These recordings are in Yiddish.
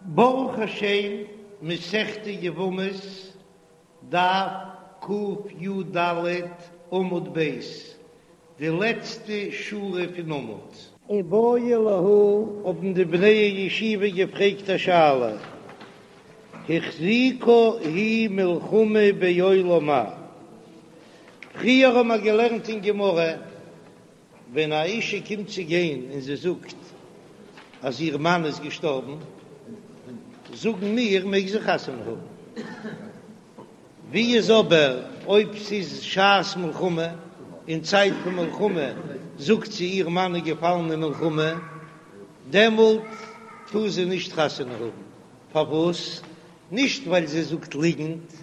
ברוך השם, מסכת יבמות, דף קי"ד עמוד ב', די לעצטע שורה פון עמוד. איבעיא להו, האבן די בני הישיבה געפרעגט א שאלה, החזיקה היא מלחמה בעולם מהו? פריער האבן מיר געלערנט אין גמרא, ווען א אישה קומט צו גיין און זי זאגט אז איר מאן איז געשטארבן, זאגן מיר מעג זי חתונה האבן. ווי איז אבער אויב ס'איז שעת מלחמה, אין צייט פון מלחמה זאגט זי איר מאן איז געפאלן אין מלחמה, דעמאלט טאר זי נישט חתונה האבן. פארוואס? נישט ווייל זי זאגט ליגנט,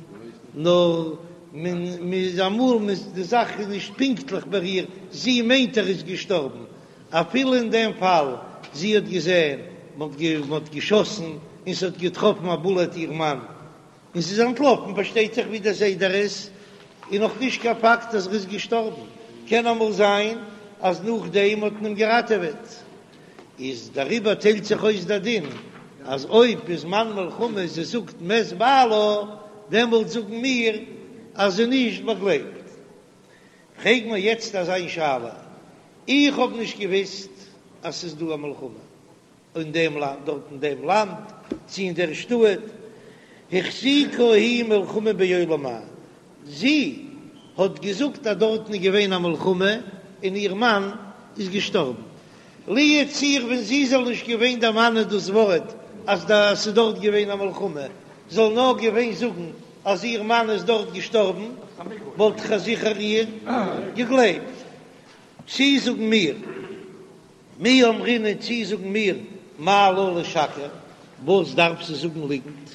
נאר מען איז אמאל מען די זאך איז נישט פונקטליך ביי איר, זי מיינט ער איז געשטארבן, אפילו אין דעם פאל זי האט געזען מען האט געשאסן און ס'האט געטראפן א בולעט איר מאן און זי איז אנטלאפן, פארשטייט זיך ווי דער סדר איז, איז נאך נישט קיין פאקט אז ער איז געשטארבן, קען אמאל זיין אז נאכדעם האט מען אים געראטעוועט. איז דעריבער טיילט זיך אויס דער דין אז אויב בזמן מלחמה זי זאגט מת בעלה דעמאלט זאגן מיר אז זי נישט באגלייבט. פרעג מיר יעצט אזא שאלה, איך האב נישט געוויסט אז ס'איז דא א מלחמה אין דעם לאנד דארט אין דעם לאנד צו אין דער שטאט, החזיקה היא מלחמה בעולם מהו, זי האט געזאגט אז דארטן איז געווען א מלחמה און איר מאן איז געשטארבן. לו יצוייר ווען זי זאל נישט געווען דערמאנען דאס ווארט אז ס'איז דארט געווען א מלחמה, זאל נאר געווען זאגן אז איר מאן איז דארט געשטארבן, וואלט איך זיכער איר געגלייבט. צי זאגן מיר, מי אמרינן צי זאגן מיר, מה לה לשקר, וואס דארף זי זאגן ליגנט?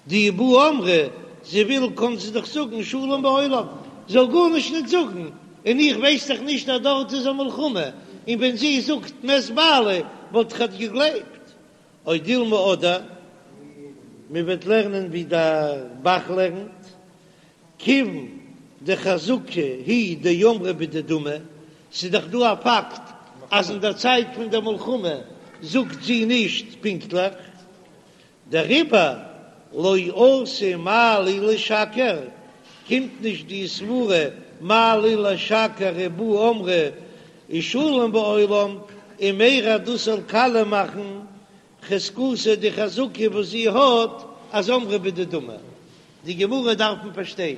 דאי בעיא אמרה, זי וויל קאן זי דאך זאגן שלום בעולם, זאל גארנישט ניט זאגן, און איך ווייס דאך נישט אז דארט איז א מלחמה, און ווען זי זאגט מת בעלי וואלט איך אט געגלייבט. או דילמא אדער מען וועט לערנען ווי דער ב"ח לערנט, כיוון דחזקה היא דאמרה בדדמי, ס'איז דאך דא א פאקט אז אין דער צייט פון דער מלחמה זאגט זי נישט פונקטליך, דעריבער לא אתי מה לי לשקר, קומט נישט די סברה מה לי לשקר אי בעיא אמרה ושלום בעולם, ומירע דאס זאל קאליע מאכן חזקתה די חזקה וואס זי האט אז אמרה בדדמי. די גמרא דארף מען פארשטיין.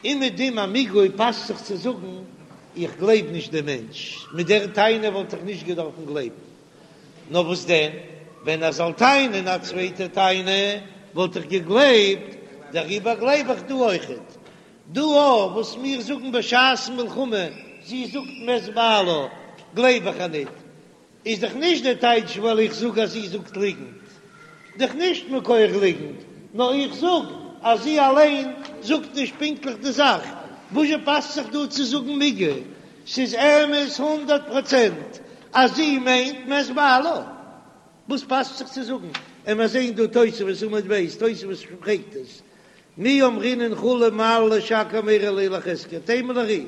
אומעדום א מיגו פאסט זיך צו זאגן איך גלייב נישט דעם מענטש, מיט דער טענה וואלט איך נישט געדארפן גלייבן, נאר וואס דען ווען ער זאל טענה'ן א צווייטע טענה וואלט איך געגלייבט, דעריבער גלייב איך דא אויכעט. דא אויך וואס מיר זאגן בשעת מלחמה זי זאגט מת בעלה גלייב איך איר ניט, איז דאך נישט דער טייטש ווייל איך זאג אז זי זאגט ליגנט, דאך נישט מכח ליגנט, נאר איך זאג אז זי אליין זאגט נישט פונקטליך די זאך, וואזשע פאסט זיך דא צו זאגן מיגו? ס'איז אמת הונדערט פראצענט אז זי מיינט מת בעלה, וואס פאסט זיך צו זאגן? און מיר זעען דא תוספות עמוד ב', תוספות פרעגט עס, מי אמרינן כולי מה לה לשקר מרע ליה לחזקיה, תימה לר"י.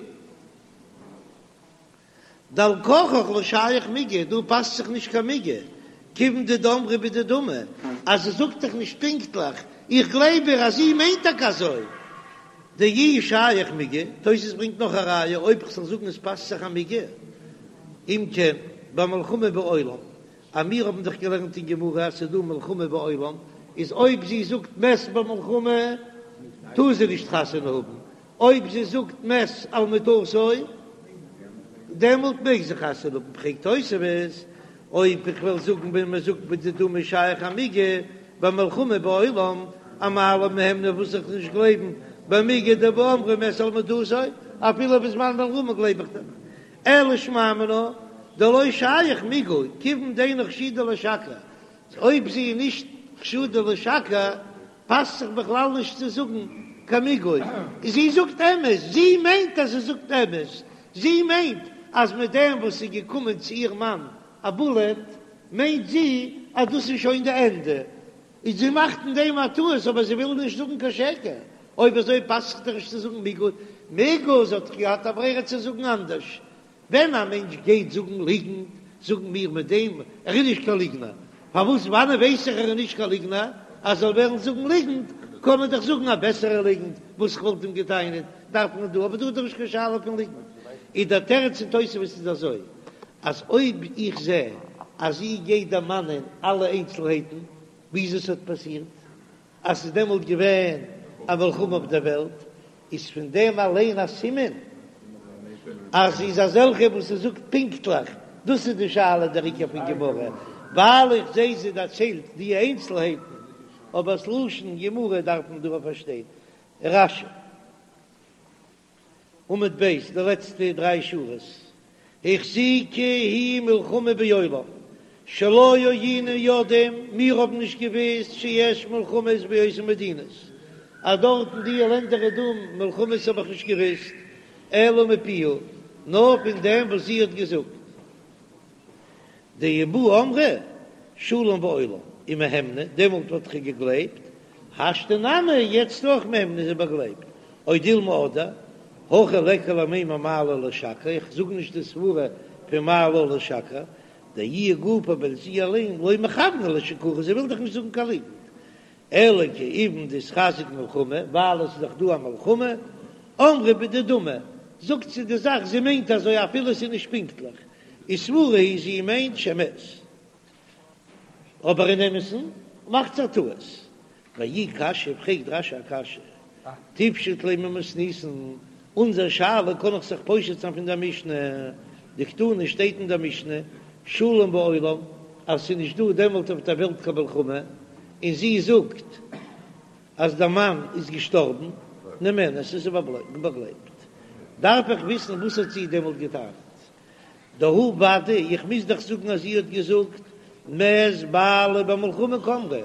דעל כרחך לא שייך מיגו, דא פאסט זיך נישט קיין מיגו, כיוון דאמרה בדדמי, אז זי זאגט דאך נישט פונקטליך, איך גלייב איר אז זי מיינט טאקע אזוי. דאי שייך מיגו, תוס' ברענגט נאך א ראיה, אויב כ'זאל זאגן עס פאסט זיך א מיגו, אם כן, במלחמה בעולם, אז מיר האבן דאך געלערנט אין גמרא אז ס'איז דא מלחמה בעולם, איז אויב זי זאגט מת במלחמה טאר זי נישט חתונה האבן, אויב זי זאגט מת על מטתו דעמאלט מעג זי חתונה האבן, פרעגט תוספות, אויב איך וועל זאגן ווען מען זאגט בדדמי שייך א מיגו במלחמה בעולם, אמאי לא מהימנא וואס זאל איך נישט גלייבן במיגו דבאמרה מת על מטתו, אפילו בזמן מלחמה גלייב איך דאך, אלא שמע מינה דלא שייך מיגו כיוון דאינה חשודה לשקר, אויב זי איז נישט חשודה לשקר פאסט זיך בכלל נישט צו זאגן קיין מיגו, זי זאגט אמת, זי מיינט אז זי זאגט אמת, זי מיינט אז מיט דעם וואס ס'איז געקומען צו איר מאן א בולעט מיינט זי אז דאס איז שוין די ענדע, און זי מאכט אין דעם א טעות אבער זי וויל נישט זאגן קיין שקר, אויב אזוי פאסט זיך דאך נישט צו זאגן מיגו, מיגו זי האט דאך געהאט א ברירה צו זאגן אנדערש, ווען א מענטש גייט זאגן ליגנט. זאגן מיר מיט דעם ער איז נישט קיין ליגנער, פארוואס וואנען ווייס איך ער איז נישט קיין ליגנער, אז זאל וועלן זאגן ליגנט קען מען דאך זאגן א בעסערע ליגנט וואס איך וואלט אים געטענה'ט דארף מען דא, אבער דא איז דאך נישט קיין שאלה פון ליגנט, איז דער תירוץ אין תוספות איז אזוי אז אויב איך זע אז זי גייט דערמאנען אלע איינצלהייטן וויאזוי ס'האט פאסירט אז ס'איז דעמאלט געווען א מלחמה אויף דער וועלט, איז פון דעם אליין א סימן אז זי איז אזעלכע וואס זי זאגט פונקטליך, דאס איז די שאלה דער עיקר פון גמרא, ווייל איך זע זי דערציילט די איינצלהייטן, אבער ס'לשון גמרא דארף מען דא פארשטיין. רש"י. עמוד ב', די לעצטע דריי שורות, החזיקה היא מלחמה בעולם, שלא היינו יודעים, מיר האבן נישט געוואוסט שיש מלחמות באותן מדינות, אז דארט אין די לענדער איז דא מלחמות האב איך נישט געוואוסט, אלא מפיה, נאר פון דעם וואס זי האט געזאגט. דאי בעיא אמרה שלום בעולם ומהימנא, דעמאלט וואלט איך געגלייבט, השתא נמי יעצט אויך מהימנא איז זי באגלייבט, או דילמא אדער, הכא ליכא למימר מה לה לשקר, איך זאג נישט די סברה פון מה לה לשקר, דאיהי גופא ווייל זי אליין לא מכוונה לשקורי זי וויל דאך נישט זאגן קיין ליגנט, אלא כיון דאיתחזק מלחמה, ווייל עס איז דאך דא א מלחמה, אמרה בדדמי, זאגט זי די זאך זי מיינט אזוי אפילו עס איז נישט פונקטליך, וסבורה היא זי מיינט שמת, אבער אין אמת'ן מאכט זי א טעות. ואי קשיא, פרעגט רש"י א קשיא, תיפשוט ליה ממתניתין, אונזער שאלה קען איך זיך פושט זיין פון דער משנה, דקתני שטייט אין דער משנה, שלום בעולם, אז ס'איז נישט דא דעמאלט אויף דער וועלט קיין מלחמה, און זי זאגט אז דער מאן איז געשטארבן, נאמנת, איז זי באגלייבט. דארף איך וויסן וואס האט זי דעמאלט געטענה'ט. דהא ודאי, איך מוז דאך זאגן אז זי האט געזאגט מת בעלי במלחמה קאמרה,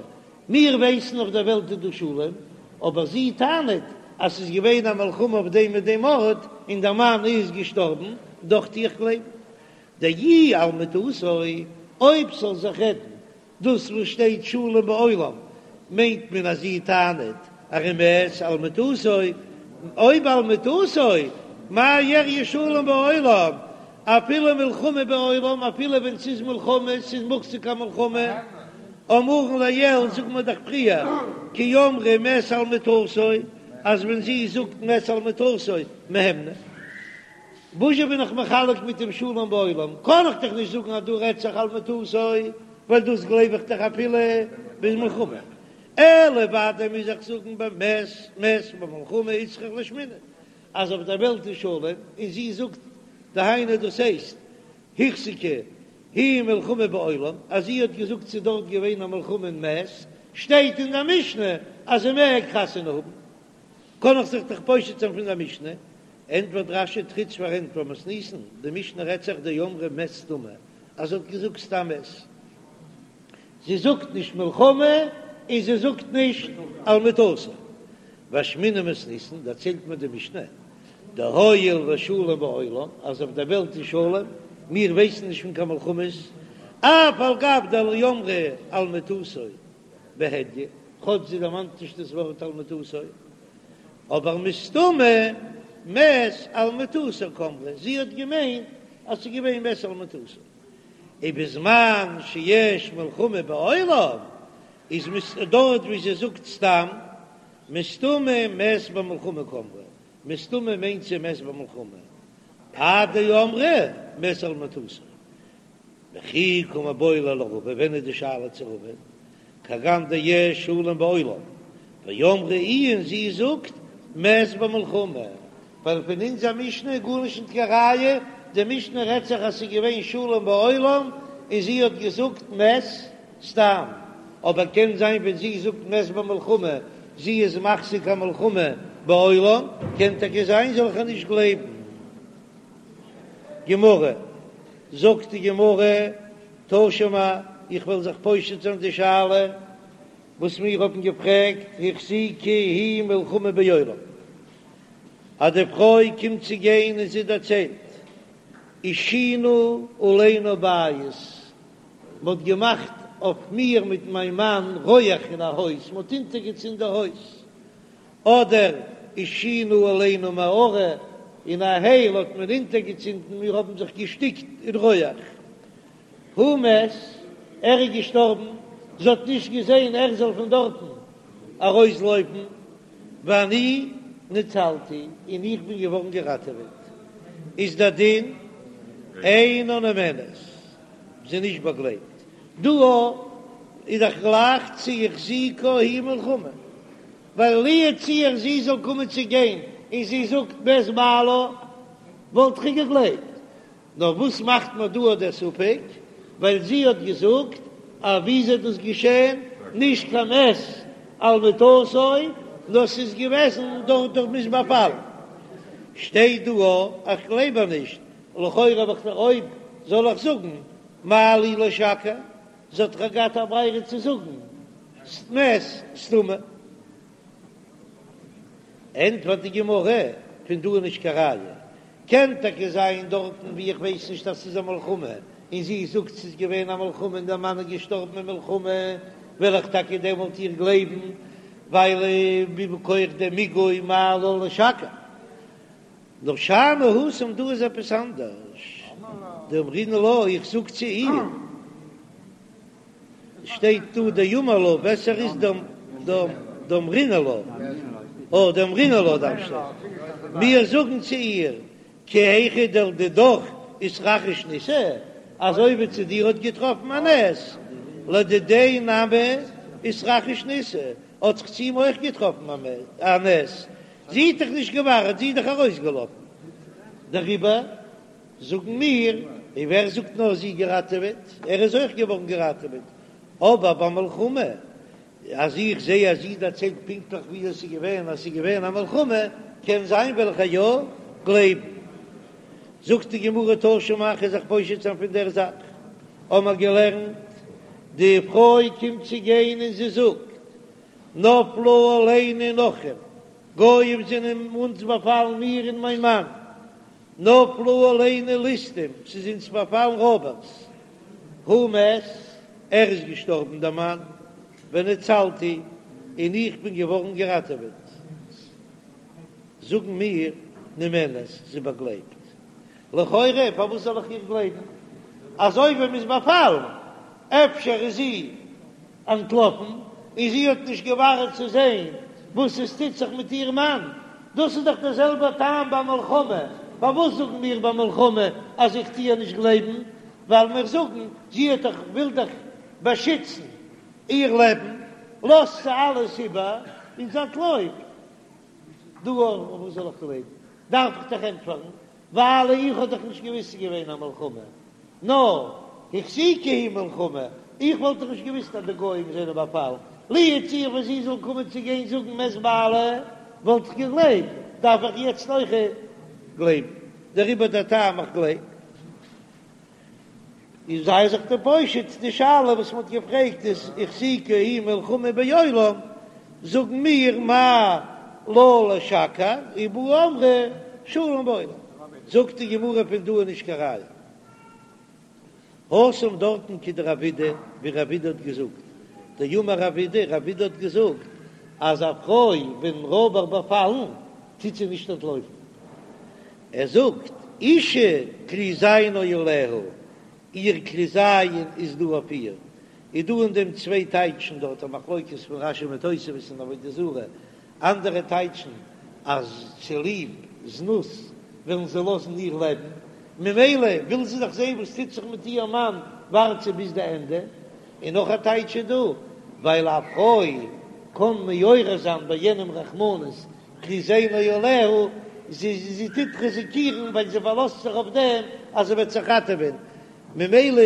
מיר ווייסן אויף דער וועלט איז דא שלום, אבער זי טענה'ט אז ס'איז געווען א מלחמה אויף דעם און דעם ארט און דער מאן איז געשטארבן, דאך טו איך גלייבן. דאי על מטתו, אויב ס'זאל זיך רעדן דאס וואס שטייט שלום בעולם מיינט מען אז זי טענה'ט אז ער מת על מטתו, אויב על מטתו, מאי איריא שלום בעולם, אפילו מלחמה בעולם, אפילו ווען ס'איז מלחמה, ס'איז מוחזק א מלחמה, אמרן לעיל זאגט מען דאך פריער, כי אמרה מת על מטתו, אז ווען זי זאגט מת על מטתו, מהימנא. וואזשע בין איך מחלק מיט דעם שלום בעולם? קען איך דאך נישט זאגן אז דא רעדט זיך על מטתו, ווייל דאס גלייב איך דאך אפילו ביז מלחמה. אלא ודאי מוז איך זאגן במת מת במלחמה איצטריך לאשמועינן אז אויף דער וועלט איז שלום, און זי זאגט דהיינו דאס הייסט החזיקה היא מלחמה בעולם, אז זי האט געזאגט ס'איז דארט געווען א מלחמה און מת, שטייט אין דער משנה אז זי מעג חתונה האבן. קען איך זיך דאך פושט זיין פון דער משנה, ענטפערט רש"י תריץ פארענטפער מתניתין, די משנה רעדט זיך דאמרה מת סתמא, אז זי האט געזאגט סתם מת, זי זאגט נישט מלחמה און זי זאגט נישט על מטתו. ואשמעינן מתניתין, דערציילט מיר די משנה, דהואיל ושלום בעולם, אז אויף דער וועלט איז שלום, מיר ווייסן נישט פון קיין מלחמות, אף על גב דלא אמרה על מטתו בהדיא, כאטש זי דערמאנט נישט דאס ווארט על מטתו, אבער מסתמא מת על מטתו קאמרה, זי האט געמיינט אז ס'איז געווען מת על מטתו. ובזמן שיש מלחמה בעולם, איז דארט ווי זי זאגט סתם, מסתמא מת במלחמה קאמרה, מסתמא מיינט זי מת במלחמה, עד דאמרה מת על מטתו. וכי קא מיבעיא ליה לרבא, ווען איז די שאלה צו רבא? כגון דיש שלום בעולם, ואמרה איהי און זי זאגט מת במלחמה, ווייל פון אונזער משנה איז גארנישט נישט קיין ראיה, די משנה רעדט זיך אז ס'איז געווען שלום בעולם און זי האט געזאגט מת סתם, אבער קען זיין ווען זי זאגט מת במלחמה זי איז מחזיק א מלחמה בעולם, קען טאקע זיין זאל איך איר נישט גלייבן. גמרא, זאגט די גמרא, תא שמע, איך וועל זיך פושט זיין די שאלה וואס מיר האבן געפרעגט, החזיקה היא מלחמה בעולם, אז די פרוי קומט צו גיין און זי דערציילט, עישינו עלינו בית, מען האט געמאכט אויף מיר מיט מיין מאן רויעך אין א הויז, מען האט אונטערגעצינדן די הויז, אדער עישינו עלינו מערה, אין א הייל האט מען אונטערגעצינדן, מיר האבן זיך געשטיקט אין רויעך. הוא מת, ער איז געשטארבן, זי האט נישט געזען ער זאל פון דארטן ארויסלויפן, ואני נצלתי, און איך בין געווארן געראטעוועט, איז דער דין אינה נאמנת, זי איז נישט באגלייבט. דא איז דאך גלייך צו החזיקה היא מלחמה, ווייל לו יצוייר זי זאל קומען צו גיין און זי זאגט מת בעלה וואלט איך געגלייבט, נאר וואס מאכט מען דא דער ספק? ווייל זי האט געזאגט אז ווי איז דאס געשען? נישט קיין מת על מיטתו, נאר ס'איז געוועזן דורך דורך מ'איז באפאלן. שטייט דא א איך גלייב איר נישט, לכאורה האב איך אויב זאל איך זאגן מה לי לשקר, זי האט דאך געהאט א ברירה צו זאגן מת סתמא. ענטפערט די גמרא, פון דא איז נישט קיין ראיה, קען טאקע זיין דארטן ווי איך ווייס נישט אז ס'איז א מלחמה, און זי זאגט ס'איז געווען א מלחמה און דער מאן איז געשטארבן אין מלחמה, וועל איך טאקע דעמאלט איר גלייבן, ווייל מכח דעם מיגו מה לה לשקר. נאר שאני התם דא איז עפעס אנדערש, דאמרינן לה, איך זאג צו איר. שטייט דא דאמר לה, בעסער איז דאמרינן לה, אה דאמרינן לה דארף שטיין, מיר זאגן צו איר, כי היכי דלדידך איתרחיש ניסא, אזוי ווי צו דיר האט געטראפן א נס, לדידיה נמי איתרחיש ניסא, האט זיך צו אים אויך געטראפן א נס, זי האט דאך נישט געווארט, זי איז דאך ארויסגעלאפן, דעריבער זאגן מיר, און ווער זאגט נאר זי געראטעוועט, ער איז אויך געווארן געראטעוועט, אבער ביי מלחמה, אז איך זע אז זי דערציילט פונקטליך ווי עס איז געווען, אז עס איז געווען א מלחמה, קען זיין וועל איך איר יא גלייבן. זאגט די גמרא תא שמע, כ'וועל זיך פושט זיין פון דער זאך, האמער געלערנט, די פרוי קומט צו גיין און זי זאגט, נפלו עלינו נכרים, גויים זענען אונז באפאלן מיר און מיין מאן, נפלו עלינו ליסטים, ס'איז אונז באפאלן רויבערס. הוא מת, ער איז געשטארבן דער מאן, ונצלתי, און איך בין געווארן געראטעוועט. זאגן מיר, נאמנת, זי באגלייבט. לכאורה, פארוואס זאל איך איר גלייבן? אזוי ווי מ'איז באפאלן, אפשר איז זי אנטלאפן און זי האט נישט געווארט צו זען וואס עס טוט זיך מיט איר מאן, דאס איז דאך דער זעלבער טעם ביי מלחמה, פארוואס זאגן מיר ביי מלחמה אז איך טו איר נישט גלייבן, ווייל מיר זאגן זי האט דאך וויל דאך באשיצן איר לעבן, לאזט זי אלעס איבער און זי אנטלויפט, דא פארוואס זאל איך גלייבן? דארף איך דאך ענטפערן, ווייל איך האב דאך נישט געוואוסט ס'איז געווען א מלחמה, נאר החזיקה היא מלחמה, איך וואלט דאך נישט געוואוסט אז די גוים זענען באפאלן, לו יצוייר ווען זי זאל קומען צו גיין זאגן מת בעלי, וואלט איך געגלייבט, דארף איך יעצט אויך גלייבן, דעריבער דער טעם איך גלייב. איז זיי זיך דא פושט די שאלה וואס מ'האט געפרעגט איז החזיקה היא מלחמה בעולם, זאגן מיר מה לה לשקר ובאו אמרו שלום בעולם, זאגט די גמרא פון דא איז נישט קיין ראיה. התם דארטן כדרב אידי, ווי רב אידי האט געזאגט, דאמר רב אידי, רב אידי האט געזאגט אז א פרוי ווען רויבער באפאלן טוט זי נישט אנטלויפן, ער זאגט אשה כלי זיינה עליה, איר כלי זיין איז דא אויף איר, איז דא אין דעם צוויי טייטשן דארט א מחלוקת פון רש"י מיט תוספות אין עבודה זרה, אנדערע טייטשן אז צוליב זנות ווילן זיי לאזן איר לעבן, ממילא וויל זי דאך זען וואס טוט זיך מיט איר מאן, ווארט זי ביז די ענדע, און נאך א טייטש איז דא, ווייל א פרוי קען מעורר זיין ביי יענעם רחמנות, כלי זיינה עליה, זי טוט ריזיקירן ווייל זי פארלאזט זיך אויף דעם אז זי וועט זיך ראטעווען, ממילא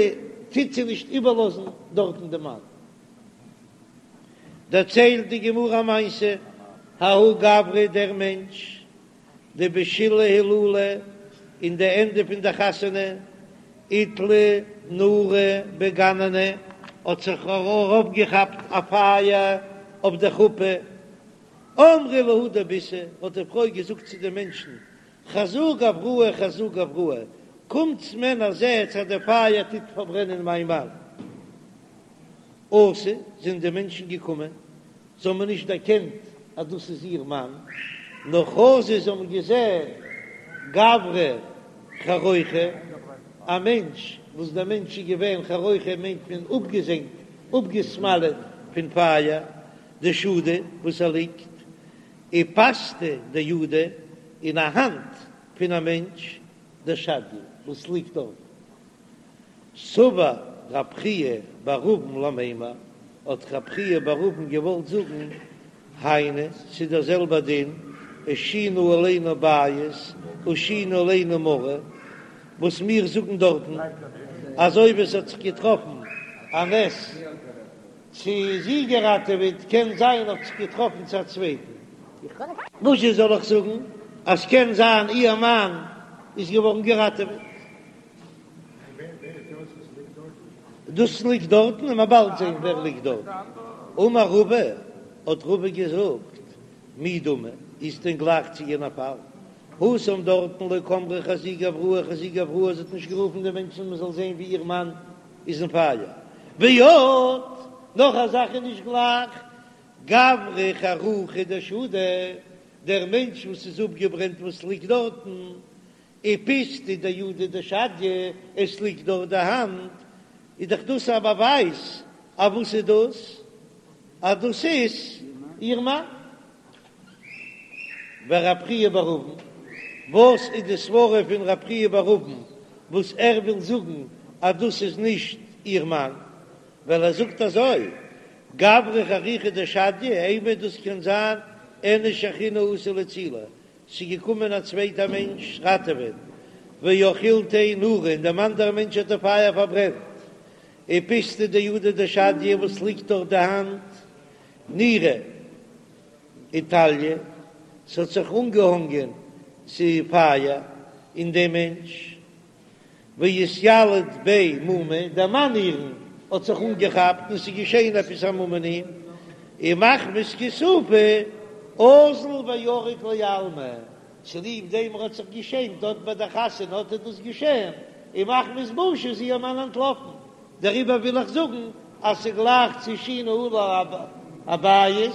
טוט זי נישט איבערלאזן דארטן די מאן. דערציילט די גמרא א מעשה, ההוא גברא דער מענטש, דבשילהי הילולא, אין די ענדע פון די חתונה, איתלי נורא בגננא, האט זיך ארויפגעכאפט א פייער אויף די חופה, אמרה להו דביתהו, האט די פרוי געזאגט צו די מענטשן, חזו גבראי חזו גבראי, קומטס מענער זעטס אז די פייער טוט פארברענען מיין מאן. אתו, זענען די מענטשן געקומען, זיי האבן נישט דערקענט אז דאס איז איר מאן, נאר חזו זיי האבן געזען גברא חרוכא, א מענטש. וואס דער מענטש איז געווען חרוכא מיינט מען אפגעזענגט, אפגעסמאלעט פון פייער, דשדי וואס ער ליגט, ופסתא דידא, און א האנט פון א מענטש, דשדיא וואס ליגט דארט. סבר רב חייא בר אבין למימר, האט רב חייא בר אבין געוואלט זאגן, היינו, ס'איז דער זעלבער דין, השינו עלינו בית, השינו עלינו מרה, וואס מיר זאגן דארטן, אז אויב עס האט זיך געטראפן א נס צו זי געראטעוועט, קען זיין האט זיך געטראפן צו א צווייטן. וואזשע זאל איך זאגן אז קען זיין איר מאן איז געווארן געראטעוועט? דאס ליגט דארטן און מ'עט באלד זען ווער ליגט דארטן. אמר רבא, האט רבא געזאגט, מי דמי, איז דען גלייך צו יענע פאל? התם דארטן לא קאמרה חזו גבראי חזו גבראי, זי האט נישט גערופן די מענטשן מען זאל זען ווי איר מאן איז אין פייער. ועוד, נאך א זאך איז נישט גלייך, גברא חרוכא דשדי, דער מענטש וואס איז אפגעברענט וואס ליגט דארטן, ופסתא דידא דשדיא, עס ליגט דארט די האנט, איז דאך דאס א באווייז אז וואס איז דאס? אז דאס איז איר מאן. ורב חייא בר אבין, וואס איז די סברה פון רב חייא בר אבין וואס ער וויל זאגן אז דאס איז נישט איר מאן? ווייל ער זאגט אזוי, גברא חרוכא דשדיא, אימא דאס קען זיין איניש אחרינא אתא לאצולי, ס'איז געקומען א צווייטע מענטש ראטעווען, ואכילתיה נורא, און דעם אנדערע מענטש האט די פייער פארברענט, ופסתא דידא דשדיא וואס ליגט דארט די האנט, נורא איתליא, ס'האט זיך אנגעהאנגען ס'פייער אין דעם מענטש. ואיתיליד ביה מומא, דער מאן אירן האט זיך אנגעכאפט און ס'איז געשען עפעס א מום אין אים, ומחמת כיסופא אזל וערק לעלמא, צוליב דעם ער האט זיך געשעמט דארט ביי דער חתונה האט ער דאס געשען, און מחמת בושה איז איר מאן אנטלאפן, דעריבער וויל איך זאגן אז ס'גלייך צו השינו עלי הבית,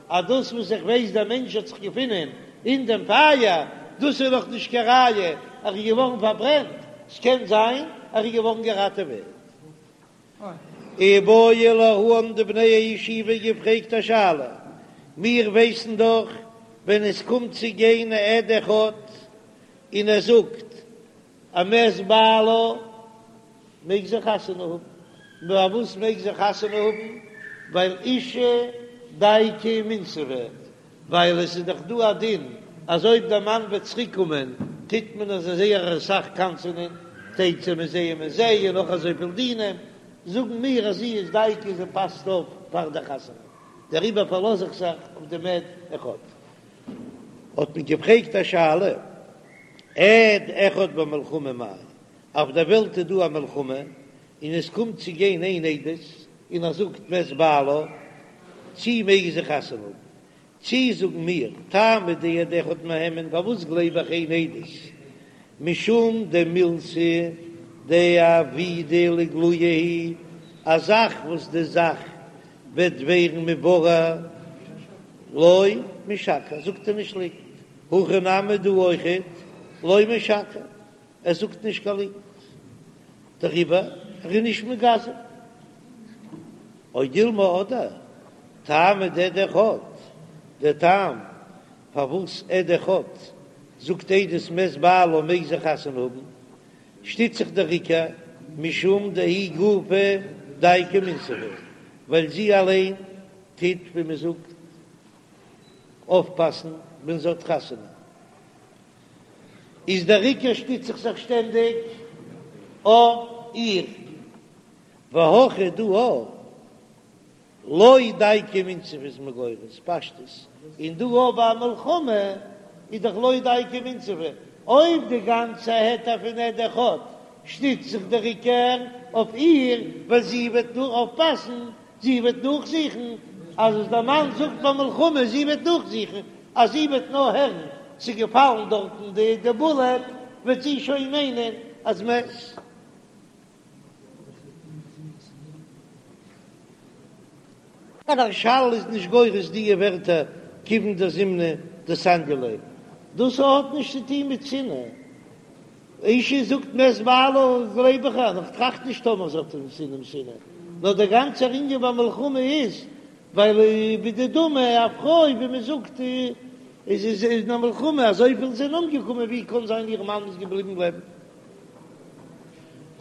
אז דאס וואס איך ווייס דער מענטש האט זיך געפונען אין דעם פייער, דאס איז נאך נישט קיין ראיה ער איז געווארן פארברענט, ס'קען זיין ער איז געווארן געראטעוועט. איבעיא להו האבן די בני הישיבה געפרעגט א שאלה, מיר ווייסן דאך ווען עס קומט צו גיין א עד אחד און ער זאגט אז מת בעלה מעג זי חתונה האבן. פארוואס מעג זי חתונה האבן? ווייל אשה דייקא ומינסבא, ווייל עס איז דאך דא א דין אז אויב דער מאן וועט צוריק קומען טוט מען אזוי זייער אסאך קנס'ענען, תצא מזה ומזה און נאך אזויפיל דינים, זאגן מיר אז זי איז דייקא זי פאסט אויף פאר די חתונה, דעריבער פארלאז איך זיך אויף דעם עד אחד. האט מען געפרעגט א שאלה, עד אחד במלחמה מאי, אויף דער וועלט איז דא א מלחמה, און עס קומט צו גיין איין עדות, און ער זאגט מת בעלה, צי מעג זי חתונה האבן? צי זאגן מיר, טעמא דעד אחד מהימן, פארוואס גלייב איך איין עדות? משום דמילתא דעבידא לאיגלויי היא, א זאך וואס די זאך וועט ווערן מבורר, לא משקר, זאגט ער נישט ליגנט, הכא נמי דא אויכעט, לא משקר. ער זאגט נישט קיין ליגנט, דעריבער ער איז נישט מגזם. או דילמא אדער טעמא דעד אחד, דער טעם פארוואס עד אחד זאגט עדות מת בעלה מעג זי חתונה האבן, שטיצט זיך דער עיקר משום דהיא גופה דייקא ומינסבא, ווייל זי אליין טוט ווי מען זאגט אויפפאסן ווען זי האט חתונה. איז דער עיקר שטיץ איך זיך שטענדיג אויף איר, והכא דא לא דייקא ומינסבא איז מען גורס פשטות, און דא ביי א מלחמה איז דאך לא דייקא ומינסבא, אויב די גאנצע היתר פון עד אחד שטיצט זיך דער עיקר אויף איר, ווייל זי וועט נאר אויפפאסן זי וועט נאכזוכן אז וואס דער מאן זאגט ביי מלחמה, זי וועט נאכזוכן אז זי וועט נאר הערן ס'איז געפאלן דארטן די די בולעט, וועט זי שוין מיינען אז מת. דער מהרש"ל איז נישט גורס דיע ווערטער כיוון דזימנין דסניא ליה, דאס האט נישט צו טוהן מיט שנאה. אשה זאגט מת בעלה גלייב איך איר, איך טראכט נישט טאמער זי האט אים שנאה שנאה, נאר דער גאנצער ענין ביי מלחמה איז ווייל בדדמי א פרוי ווי מען זאגט איז איז אין א מלחמה אזויפיל זענען אומגעקומען ווי קען זיין איר מאן איז געבליבן לעבן.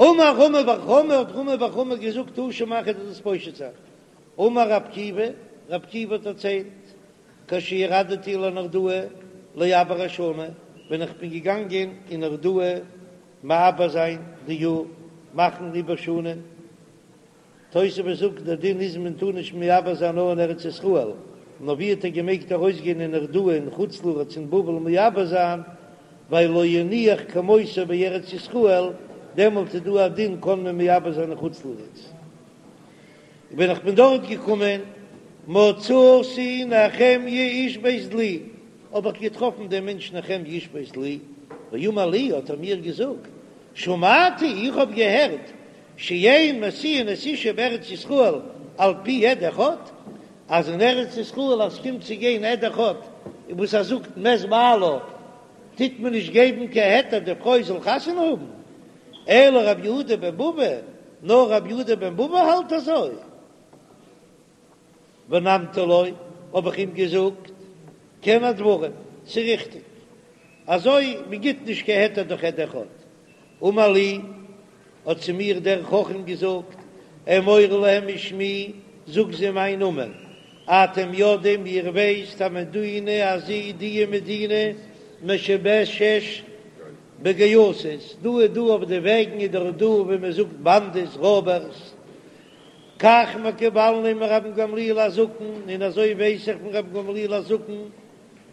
אמר רמי בר חמא האט רמי בר חמא געזאגט תא שמע כ'וועל דיר דאס פושט זיין. אמר רב עקיבא, רב עקיבא האט דערציילט, כשירדתי לנהרדעא לעבר השנה, ווען איך בין געגאנגען אין נהרדעא מעבר זיין די יאר, מאכן עיבור שנה, תוספות זאגט דער דין איז מען טאר נישט מעבר זיין נאר אין ארץ ישראל, נאר ווי האט ער געמעגט ארויסגיין אין נהרדעא אין חוץ לארץ אין בבל מעבר זיין, ווייל לא הניח כמותו בארץ ישראל, דעמאלט איז דא א דין קען מען מעבר זיין אין חוץ לארץ. ווען איך בין דארט געקומען, מצאתי נחמיה איש בית דלי, האב איך געטראפן דעם מענטש נחמיה איש בית דלי, ואמר לי, האט ער מיר געזאגט, שמעתי, איך האב געהערט, שאין משיאין את האשה בארץ ישראל על פי עד אחד, אז אין ארץ ישראל אז ס'קומט צו גיין עד אחד וואס ער זאגט מת בעלה, טוט מען נישט געבן קיין היתר די פרוי זאל חתונה האבן, אלא רבי יהודה בן בבא, נאר רבי יהודה בן בבא האלט אזוי. ונמתי לו, האב איך אים געזאגט, כן הדברים, ס'ריכטיג, אזוי מען גיט נישט קיין היתר דורך עד אחד. אמר לי, האט צו מיר דער חכם געזאגט, אמור להם בשמי, זאג זיי מיין נאמען, אתם יודעים, איר ווייסט, המדינה הזו, די מדינה משובשת בגייסות, דא איז דא אויף די וועגן איז דאך דא ווי מען זאגט באנדעס, רויבערס, כך מקובלני מרבן גמליאל הזקן, און אזוי ווייס איך פון רבן גמליאל הזקן,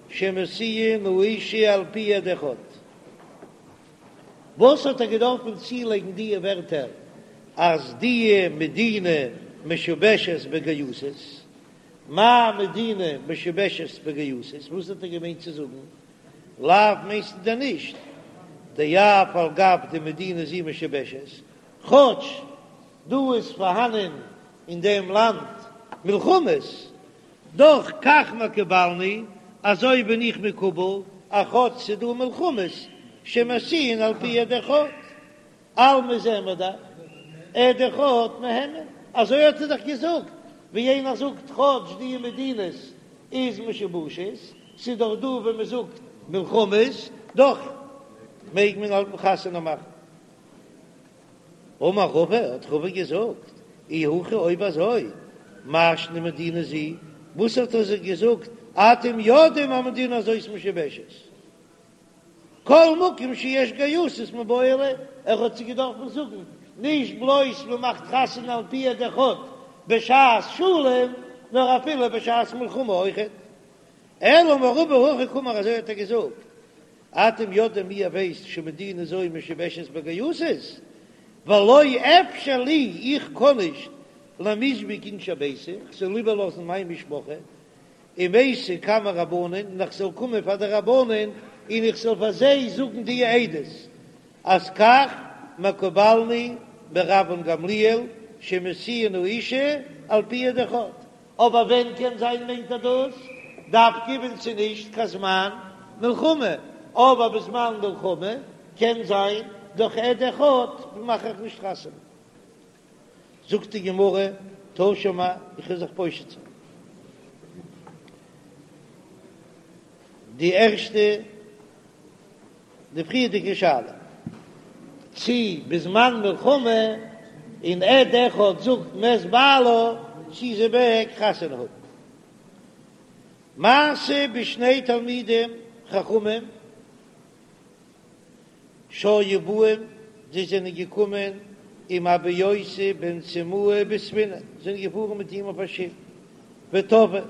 שמשיאין האשה על פי עד אחד. וואס האט ער געדארפן צולייגן דיע ווערטער אז דיע מדינה משובשת בגייסות? מאי מדינה משובשת בגייסות? וואס האט ער געמיינט צו זאגן? לאו מיינסטו דען נישט דאף על גב דמדינה זו משובשת, כאטש דא איז פארהאנען אין דעם לאנד מלחמות, דאך כך מקובלני, אזוי בין איך מקובל, אז כאטש ס'דא מלחמות שמשיאין על פי עד אחד, אלמא זעען מיר דאך עד אחד מהימן, אזוי האט ער דאך געזאגט, ווי איינער זאגט כאטש די מדינות איז משובשת, ס'איז דאך דא ווי מ'זאגט מלחמות, דאך מעג מען האלטן חתונה מאכן. אמר רבא, האט רבא געזאגט, אי הכי אויב אזוי, מאי שנא מדינה זו, וואס האט ער זיי געזאגט, אתם יודעים המדינה הזאת משובשת, כל מקום שיש גייסות מיבעי ליה, ער האט זיי געדארפן זאגן, נישט בלויז מען מאכט חתונה על פי עד אחד בשעת שלום, נאר אפילו בשעת מלחמה אויכעט. אלא אמר רבא הכי קאמר אזוי האט ער געזאגט, אתם יודעים איר ווייסט שמדינה זו משובשת בגייסות, ולא אפשר לי איך קען נישט למיזבג אינשי ביתי, איך זאל איבערלאזן מיין משפחה, ומייתי קמי רבנן, און איך זאל קומען פאר די רבנן און איך זאל פאר זיי זאגן די עדות אז כך מקובלני מרבן גמליאל שמשיאין האשה על פי עד אחד, אבער ווען קען זיין מיינט ער דאס דווקא ווען ס'איז נישט קיין זמן מלחמה, אבער בזמן מלחמה קען זיין דורך עד אחד מאך איך נישט חתונה. זאגט די גמרא, תא שמע, איך וועל זיך פושט זיין. די ערשטע, די פריערדיגע שאלה, צי בזמן מלחמה און עד אחד זאגט מת בעלה, צי זי מעג חתונה האבן. מעשה בשני תלמידים חכמים שהיו באים, זיי זענען געקומען עם אבא יוסי בן סימאי בספינה, זענען געפארן מיט אים אויף א שיף, וטבעו,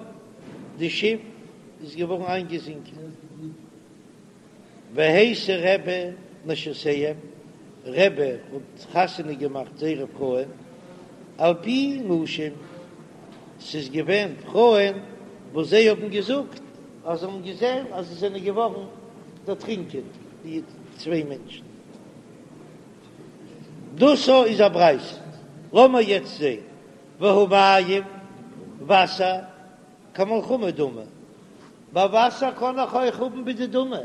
די שיף איז געווארן איינגעזינקען, והשיא רבי נשותיהם, רבי האט חתונה געמאכט זייערע פרויען, על פי נשים, ס'איז געווען פרויען וואס זיי האבן געזאגט אז זיי האבן געזען אז זיי זענען געווארן דערטרינקען די צוויי מענטשן. דאס איז א ברייתא. לאמיר יעצט זען, והא מים, וואסער, כמלחמה דמי. ביי וואסער קען איך אויך האבן בדדמי.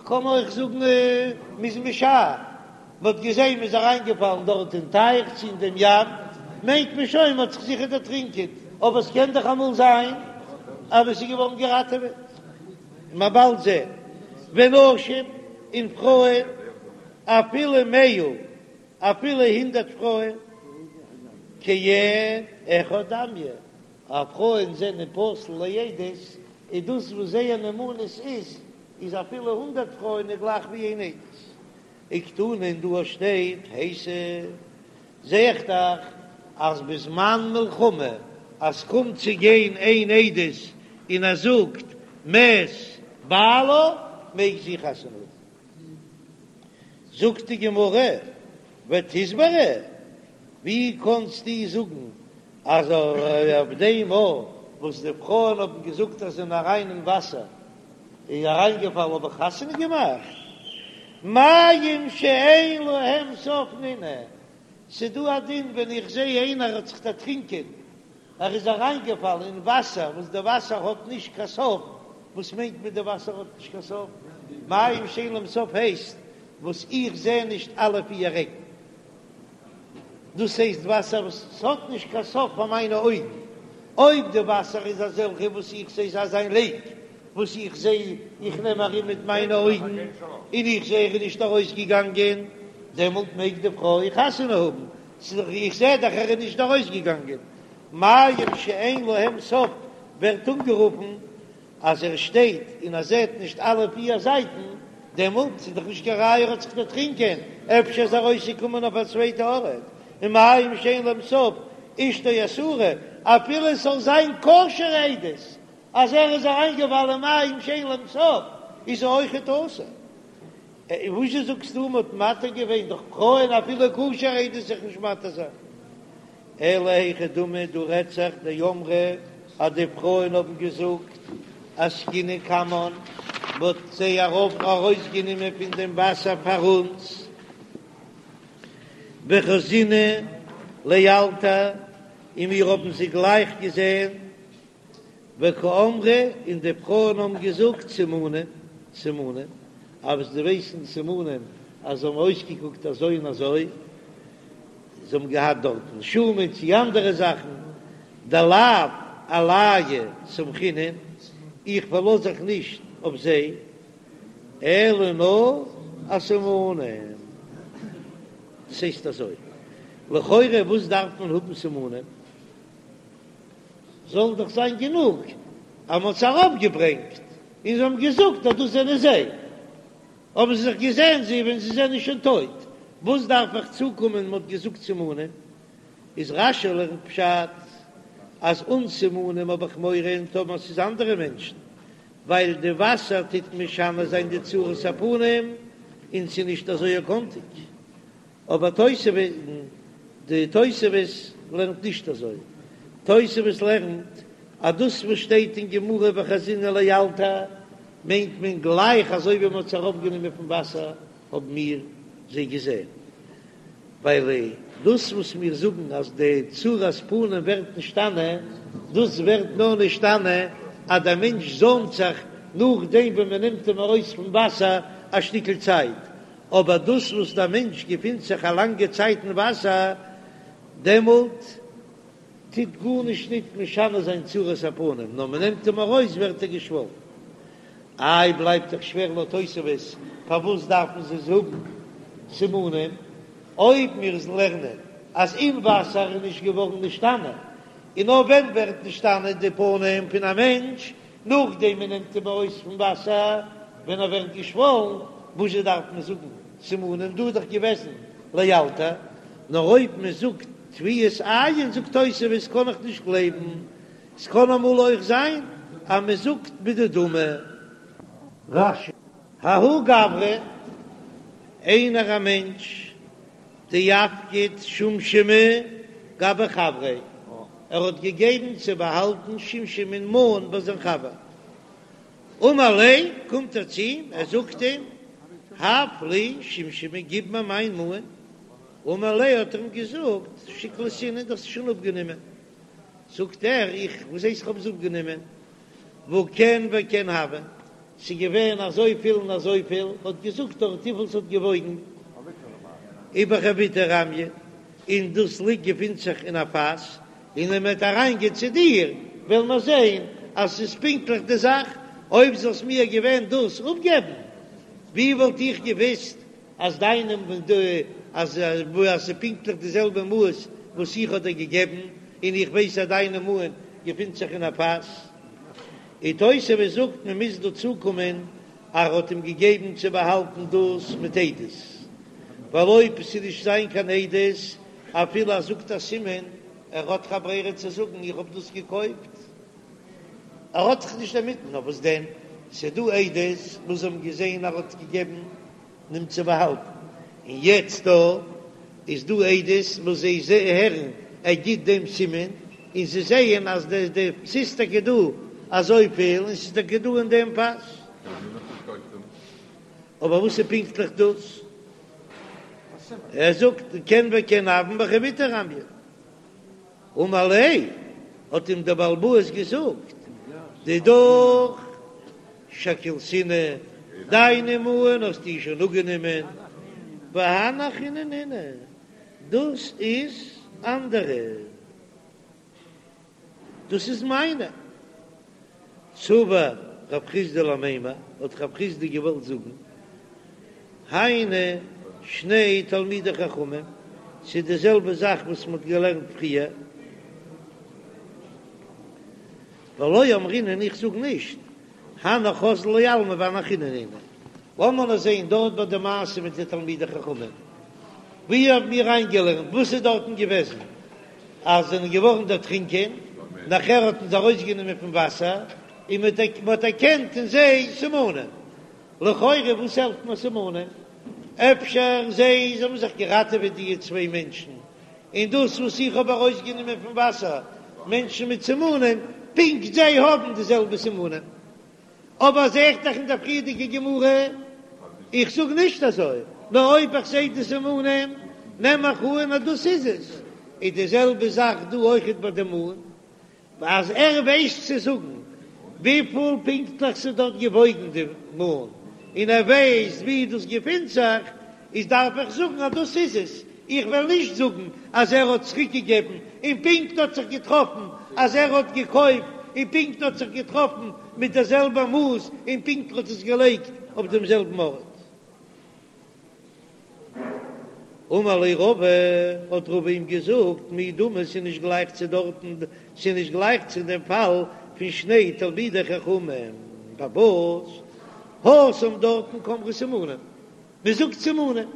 קען מען אויך זאגן מ'איז משער, מ'האט געזען מ'איז אריינגעפאלן דארט אין טייך צו אין דעם ים, מיינט מען שוין מ'האט זיך זיכער דערטרינקען, אבער עס קען דאך אמאל זיין אז עס איז געווארן געראטעוועט, מ'וועט באלד זען ונשים און פרויען אפילו מאה אפילו הונדערט פרויען כעד אחד דמיא, אז פרויען זענען פסול לעדות, איז דאס וואס זייער נאמנות איז, איז אפילו הונדערט פרויען איז גלייך ווי איין עדות. וקתני און דא שטייט הייתי, זע איך דאך אז בזמן מלחמה אז קומט צו גיין איין עדות און ער זאגט מת בעלה מעג זי חתונה האבן. זאגט די גמרא, ותסברא, ווי קאנסטו זאגן אז אויף דעם מאל וואס די פרויען האבן געזאגט אז זיי זענען אריין אין וואסער איז אריינגעפאלן האב איך חתונה געמאכט? מים שאין להם סוף נינהו, ס'דא א דין ווען איך זע איינער האט זיך דערטרינקען ער איז אריינגעפאלן אין וואסער וואס די וואסער האט נישט קיין סוף, וואס מיינט מען די וואסער האט נישט קיין סוף? מים שאין להם סוף הייסט וואס איך זע נישט אלע פיר עקן, דאס הייסט וואסער וואס ס'האט נישט קיין סוף פאר מיינע אויגן, אויב די וואסער איז אזעלכע וואס איך זע ס'איז אזא לעיק וואס איך זע איך נעם ארום מיט מיינע אויגן און איך זע ער איז נישט ארויסגעגאנגען, דעמאלט מעג די פרוי חתונה האבן, איך זע דאך ער איז נישט ארויסגעגאנגען. מים שאין להם סוף ווערט אנגערופן אז ער שטייט און ער זעט נישט אלע פיר זייטן, דעמאלט איז דאך נישט קיין ראיה ער האט זיך דערטרינקען, אפשר איז ער ארויסגעקומען אויף א צווייטע ארט, און מים שאין להם סוף אשתו אסורה, אפילו עס זאל זיין כשר'ע עדות אז ער איז אריינגעפאלן אין מים שאין להם סוף איז ער אויכעט אסור. וואזשע זאגסטו מ'האט מתיר געווען דורך פרויען אפילו כשר'ע עדות זיך נישט מתיר זיין? אלא היכי דמי דא רעדט זיך דאמרי אז די פרויען האבן געזאגט אסקינהו קמן מ'האט זיי ארויף ארויסגענומען פון דעם וואסער פאר אונז וחזינהו לאלתר און מיר האבן זיי גלייך געזען וקאמרי, און די פרויען האבן געזאגט סימנים, סימנים, אז זיי ווייסן סימנים אז זיי האבן אויסגעקוקט אזוי און אזוי, זיי האבן געהאט דארטן שומן צי אנדערע זאכן, דלאו עלייהו סמכינן, איך פארלאז זיך נישט אויף זיי, אלא נאר אסימנים. דאס הייסט אזוי, לכאורה וואס דארף מען האבן סימנים? זאל דאך זיין גענוג אז מ'האט זיי ארויפגעברענגט און זיי האבן געזאגט אז דאס זענען זיי, האבן זיי זיך געזען זיי ווען זיי זענען שוין טויט, וואס דארף איך צוקומען מ'האט געזאגט סימנים? איז רש"י לערנט פשט אז אן סימנים האב איך מורא און טאמער ס'איז אנדערע מענטשן, ווייל די וואסער טוט משנה זיין די צורת הפנים און ס'איז נישט אזוי קאנטיג. אבער תוספות, די תוספות לערנט נישט אזוי, תוספות לערנט אז דאס וואס שטייט אין גמרא וחזינהו לאלתר מיינט מען גלייך אזוי ווי מען האט זיי אראפגענומען פון וואסער האבן מיר זיי געזען, ווייל דאס וואס מיר זאגן אז די צורת פנים ווערט נשתנה, דאס ווערט נאר נשתנה אז דער מענטש זוימט זיך נאכדעם ווען מען נעמט אים ארויס פון וואסער א שטיקל צייט, אבער דאס וואס דער מענטש געפינט זיך א לאנגע צייט אין וואסער, דעמאלט טוט גארנישט ניט משנה זיין צורת הפנים, נאר מען נעמט אים ארויס ווערט ער געשוואלן. איי בלייבט דאך שווער לויט תוספות, פארוואס דארפן זיי זאגן סימנים, אויב מיר לערנען אז אין וואסער איז נישט געווארן נשתנה, און נאר ווען ווערט נשתנה די פנים פון א מענטש, נאכדעם מען נעמט אים ארויס פון וואסער ווען ער ווערט געשוואלן, וואזשע דארף מען זאגן סימנים, דא איז דאך געוועזן לאלתר, נאר אויב מען זאגט טביעת עין זאגט תוספות קען איך נישט גלייבן, ס'קען אמאל אויך זיין אז מען זאגט בדדמי. רש"י. ההוא גברא, איינער א מענטש דאפקיד שומשמי גבי חבריה, ער האט געגעבן צו באהאלטן שומשמין מאן ביי זיין חבר. אמר ליה, קומט ער צו אים, ער זאגט אים, הב לי שומשמי, גיב מיר מיין מאן. אמר ליה, האט ער אים געזאגט, שקלתינהו, דו האסט עס שוין אפגענומען. זאגט ער, איך, וואס הייסט איך האב עס אפגענומען? והא כן וכן הוה. ס'איז געווען אזויפיל און אזויפיל, האט געזאגט דארט וויפיל ס'האט געוואויגן, ובחביתא רמיא, און דאס ליגט געפינט זיך אין א פאס, און ווען מ'וועט אריינגיין צו דיר וועלן מיר זען אז ס'איז פונקטליך די זאך, אויב זאלסט מיר געווען דאס אפגעבן, ווי וואלט איך געוויסט אז דיינע אז אז ס'איז פונקטליך די זעלבע מאס וואס איך האב דיר געגעבן, און איך ווייס אז דיינע מאן געפינט זיך אין א פאס. און תוספות זאגט מען מוז דא צוקומען אז ער האט אים געגעבן צו באהאלטן דאס מיט עדות, ווייל אויב ס'איז נישט זיין קיין עדות אפילו ער זאגט א סימן, ער האט דאך א ברירה צו זאגן איך האב דאס געקויפט, ער האט זיך נישט דערמיט, נאר וואס דען ס'איז דא עדות וואס האבן געזען ער האט געגעבן אים צו באהאלטן, און יעצט דא איז דא עדות וואס זיי הערן ער גיט דעם סימן, און זיי זעען אז די די ס'איז טאקע דא אזויפיל און ס'איז טאקע דא אין דעם פאס. אבער וואס איז פונקטליך דאס? ער זאגט כן וכן הויין בחביתא רמיא. אמר ליה, האט אים דער בעל הבית געזאגט, דידך שקלתינהו, דיינע מאן האסטו שוין אפגענומען, והני אחריני נינהו, דאס איז אנדערע, דאס איז מיינע. סבר רב חסדא למימר, האט רב חסדא געוואלט זאגן, היינו שני תלמידי חכמים, ס'איז די זעלבע זאך וואס מ'האט געלערנט פריער, ולא אמרינן איך זאג נישט, הנך אזלו לעלמא והני אחריני נינהו. לאמיר נאר זען דארט ביי די מעשה מיט די תלמידי חכמים, ווי האבן מיר איינגעלערנט, וואס איז דארטן געוועזן, אז זיי זענען געווארן דערטרינקען, נאכער האט מען זיי ארויסגענומען פון וואסער, און מען האט דערקענט אין זיי סימנים. לכאורה וואס העלפט מיר סימנים? אפשר זיי האבן זיך געראטעוועט די צוויי מענטשן, און דאס וואס איך האב ארויסגענומען פון וואסער מענטשן מיט סימנים, פונקט זיי האבן די זעלבע סימנים. אבער זע איך דאך אין דער פריערדיגע גמרא, איך זאג נישט אזוי, נאר אויב איך זע די סימנים נעם איך אן אז דאס איז עס. איז די זעלבע זאך דא אויכעט ביי די מאן, אז ער ווייסט צו זאגן וויפיל פונקטליך ס'איז דארט געוואויגן די מאן, און ער ווייסט ווי דאס געפינט זיך, איז דארף איך זאגן אז דאס איז עס, איך וועל נישט זאגן אז ער האט צוריק געגעבן און פונקט האט זיך געטראפן אז ער האט געקויפט און פונקט האט זיך געטראפן מיט דער זעלבער מאס און פונקט האט עס געלייגט אויף דעם זעלבן ארט. אמר ליה רבא, האט רבא אים געזאגט, מי דמי ס'איז נישט גלייך צו דארטן, ס'איז נישט גלייך צו דעם פאל פון שני תלמידי חכמים, פארוואס התם דארטן קאמרי סימנים, מען זאגט סימנים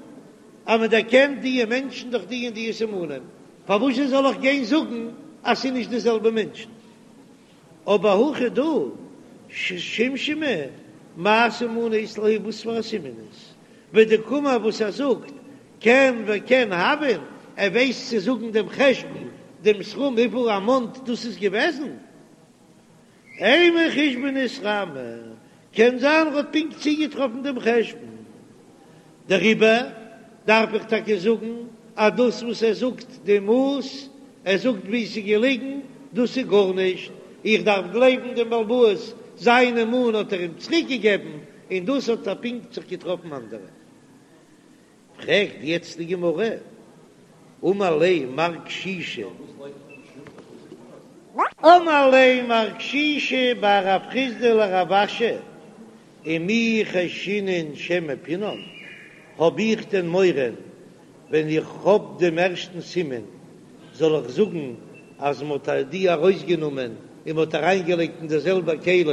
אז מען דערקענט דיע מענטשן דורך די און דיע סימנים, פארוואס זאל איך גיין זאגן אז ס'איז נישט די זעלבע מענטשן? אבער הכא דא שומשמי מאי סימנא אית להו וואס פאר א סימן איז ודקאמר וואס ער זאגט כן וכן הויין ער ווייסט צו זאגן דעם חשבון דעם סכום וויפיל א מאנט דאס איז געוועזן. אימא חושבנא אתרמי, קען זיין ער האט פונקט צוגעטראפן דעם חשבון, דעריבער דארף איך טאקע זאגן אז דאס וואס ער זאגט די מאס, ער זאגט ווי ס'איז געליגן, דאס איז גארנישט, איך דארף גלייבן דעם בעל הבית, זיינע מאן האט ער אים צוריק געגעבן, און דאס האט ער פונקט זיך געטראפן אנדערע. פרעגט יעצט די גמרא, אמר ליה מר קשישא, אמר ליה מר קשישא בר רב חסדא לרב אשי, ומי חיישינן שמא פינן, האב איך דען מורא ווען איך האב דעם ערשטן סימן זאל איך זאגן אז מען האט די ארויסגענומען און מען האט אריינגעלייגט אין דער זעלבער כלי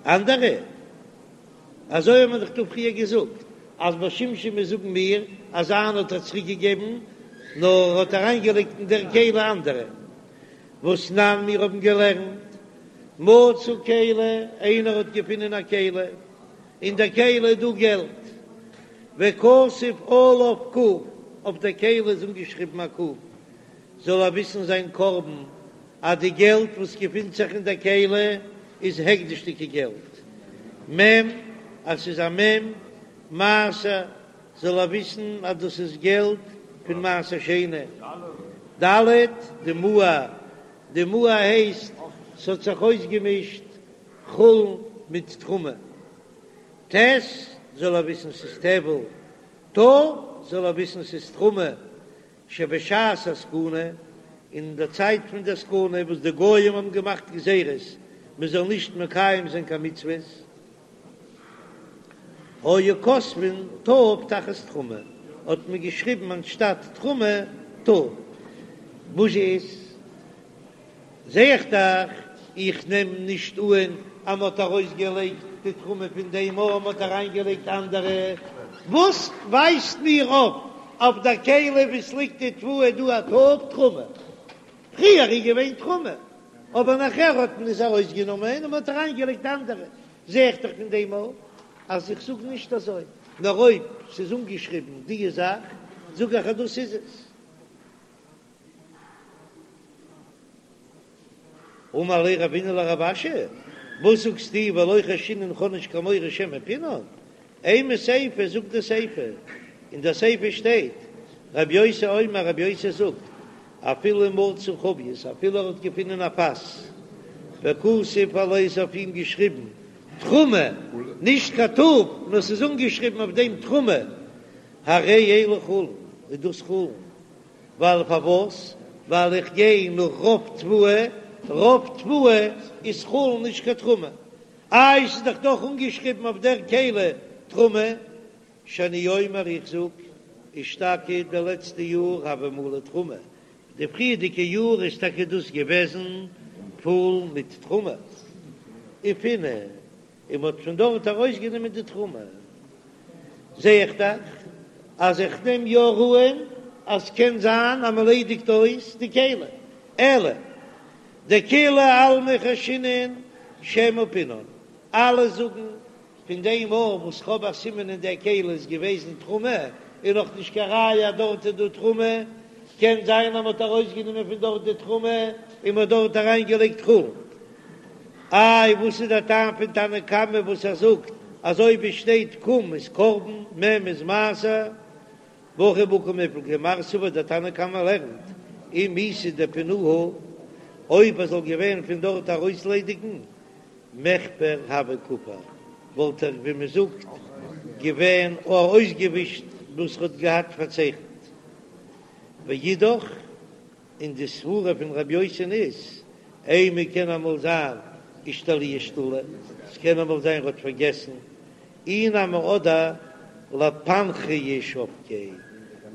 אנדערע? אזוי האט מען דאך דא פריער געזאגט אז ביי שומשמין זאגן מיר אז זיינע האט ער צוריק געגעבן נאר ער האט אריין געלייגט אין דער כלי אנדערע והתנן מיר האבן געלערנט מצא כלי איינער האט געפונען א כלי אין דער כלי איז דא געלט וכתוב עליו ק אויף דער כלי איז אנגעשריבן א ק זאל ער וויסן זיין קרבן אז די געלט וואס געפינט זיך אין דער כלי איז הקדש'דיגע געלט, מ' אז ס'איז א מ' מעשר זאל ער וויסן אז דאס איז געלט פון מעשר שני, ד' דמוער, דמוער הייסט ס'האט זיך אויסגעמישט חולין מיט תרומה. ט' זאל ער וויסן ס'איז טבל, ת' זאל ער וויסן ס'איז תרומה, שבשעת הסכנה, אין די צייט פון די סכנה וואס די גויים האבן געמאכט גזירות מען זאל נישט מקיים זיין קיין מצוות, היו כותבין ת' תחת תרומה, האט מען געשריבן אנשטאט תרומה ת'. וואס איז? זע איך דאך, איך נעם נישט אן אז מ'האט ארויסגעלייגט די תרומה פון דעם און מ'האט אריינגעלייגט אנדערע. וואס ווייזט מיר אויף אויף דער כלי וואו ס'ליגט די תבואה דא א ת' תרומה? פריער איז געווען תרומה, אבער נאכער האט מען עס ארויסגענומען און מ'האט אריינגעלייגט אנדערע. זע איך דאך פון דעם אויך אז איך זאג נישט אזוי, נאר אויב ס'איז אנגעשריבן די זאך זאג איך אז דאס איז עס. אמר ליה רבינא לרב אשי, וואס זאגסטו ולא חיישינן כ'האב נישט קיין מורא שמא פינן? אימא סיפא זאגט די סיפא, אין די סיפא שטייט רבי יוסי אומר רבי יוסי זאגט אפילו מצא חבית אפילו ער האט געפונען א פאס וכתוב עליה איז אויף אים געשריבן תרומה נישט קיין ת' נאר ס'איז אנגעשריבן אויף דעם תרומה הרי אלו חולין איז דאס חולין ווייל פארוואס? ווייל איך גיי נאך רוב תבואה, רוב תבואה איז חולין נישט קיין תרומה, איי ס'איז דאך דאך אנגעשריבן אויף דער כלי תרומה, שאני אומר איך זאג אשתקד די לעצטע יאר הוה מלא תרומה, די פריערדיגע יאר איז טאקע דאס געוועזן פול מיט תרומה, ופינו און מ'האט פון דארט ארויסגענומען די תרומה, זע איך דאך אז איך נעם יא אן אז קען זיין אז מ'ליידיגט אויס די כלי, אלא דכולי עלמא חיישינן שמא פינן, אלע זאגן פון דעם אן וואס כ'האב א סימן אין דער כלי איז געוועזן תרומה, איז נאך נישט קיין ראיה אז דארט איז דא תרומה, קען זיין אז מ'האט ארויסגענומען פון דארט די תרומה און מ'האט דארט אריינגעלייגט חולין. איי וואס איז דער טעם פון תנא קמא וואס ער זאגט אז אויב עס שטייט ק' איז קרבן, מ' איז מעשר, והכא בהא קמיפלגי מר סבר דער תנא קמא לערנט אם איתא דפינוהו אויב ער זאל געווען פון דארט ארויסליידיגן מיכפר הוה כפר וואלט ער ווי מען זאגט געווען אויסגעווישט וואס ער האט געהאט פארצייכנט ואידך. און די סברה פון רבי יוסי'ן איז, אימא קען אמאל זיין אישתלויי אשתולי, ס'קען אמאל זיין ר'האט פארגעסן, אי נמי אדער לפנכיה שבקיה,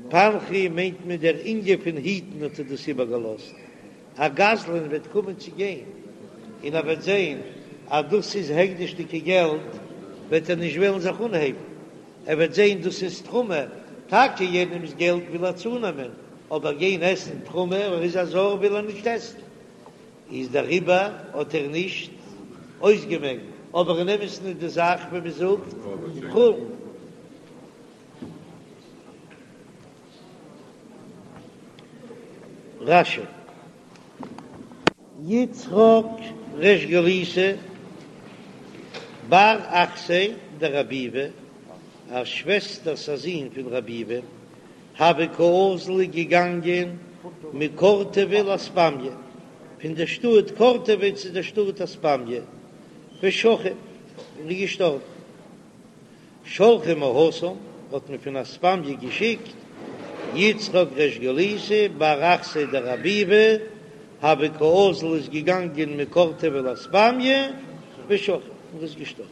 פנכיה מיינט מען דער ענין פון היטן האט ער דאס איבערגעלאזט, א גזלן וועט קומען צו גיין און ער וועט זען אז דאס איז הקדש'דיגע געלט וועט ער נישט וועלן זיך אנהייבן, ער וועט זען דאס איז תרומה, טאקע יענעמ'ס געלט וויל ער צונעמען, אבער גיין עסן תרומה, ער איז א זר וויל ער נישט עסן, איז דעריבער האט ער נישט אויסגעמעקט, אבער אין אמת'ן איז די זאך ווי מען זאגט חולין. רש"י. יצחק ריש גלותא בר אחתיה דרב ביבי, א שוועסטערס א זון פון רב ביבי, הוה קאזיל געגאנגען מקורטובא לאספמיא, פון דער שטאט קורטובא צו דער שטאט אספמיא, ושכיב, און איז געשטארבן. שלחו מהתם, האט מען פון אספמיא געשיקט יצחק ריש גלותא בר אחתיה דרב ביבי, הוה קאזיל איז געגאנגען מקורטובא לאספמיא, ושכיב, און איז געשטארבן.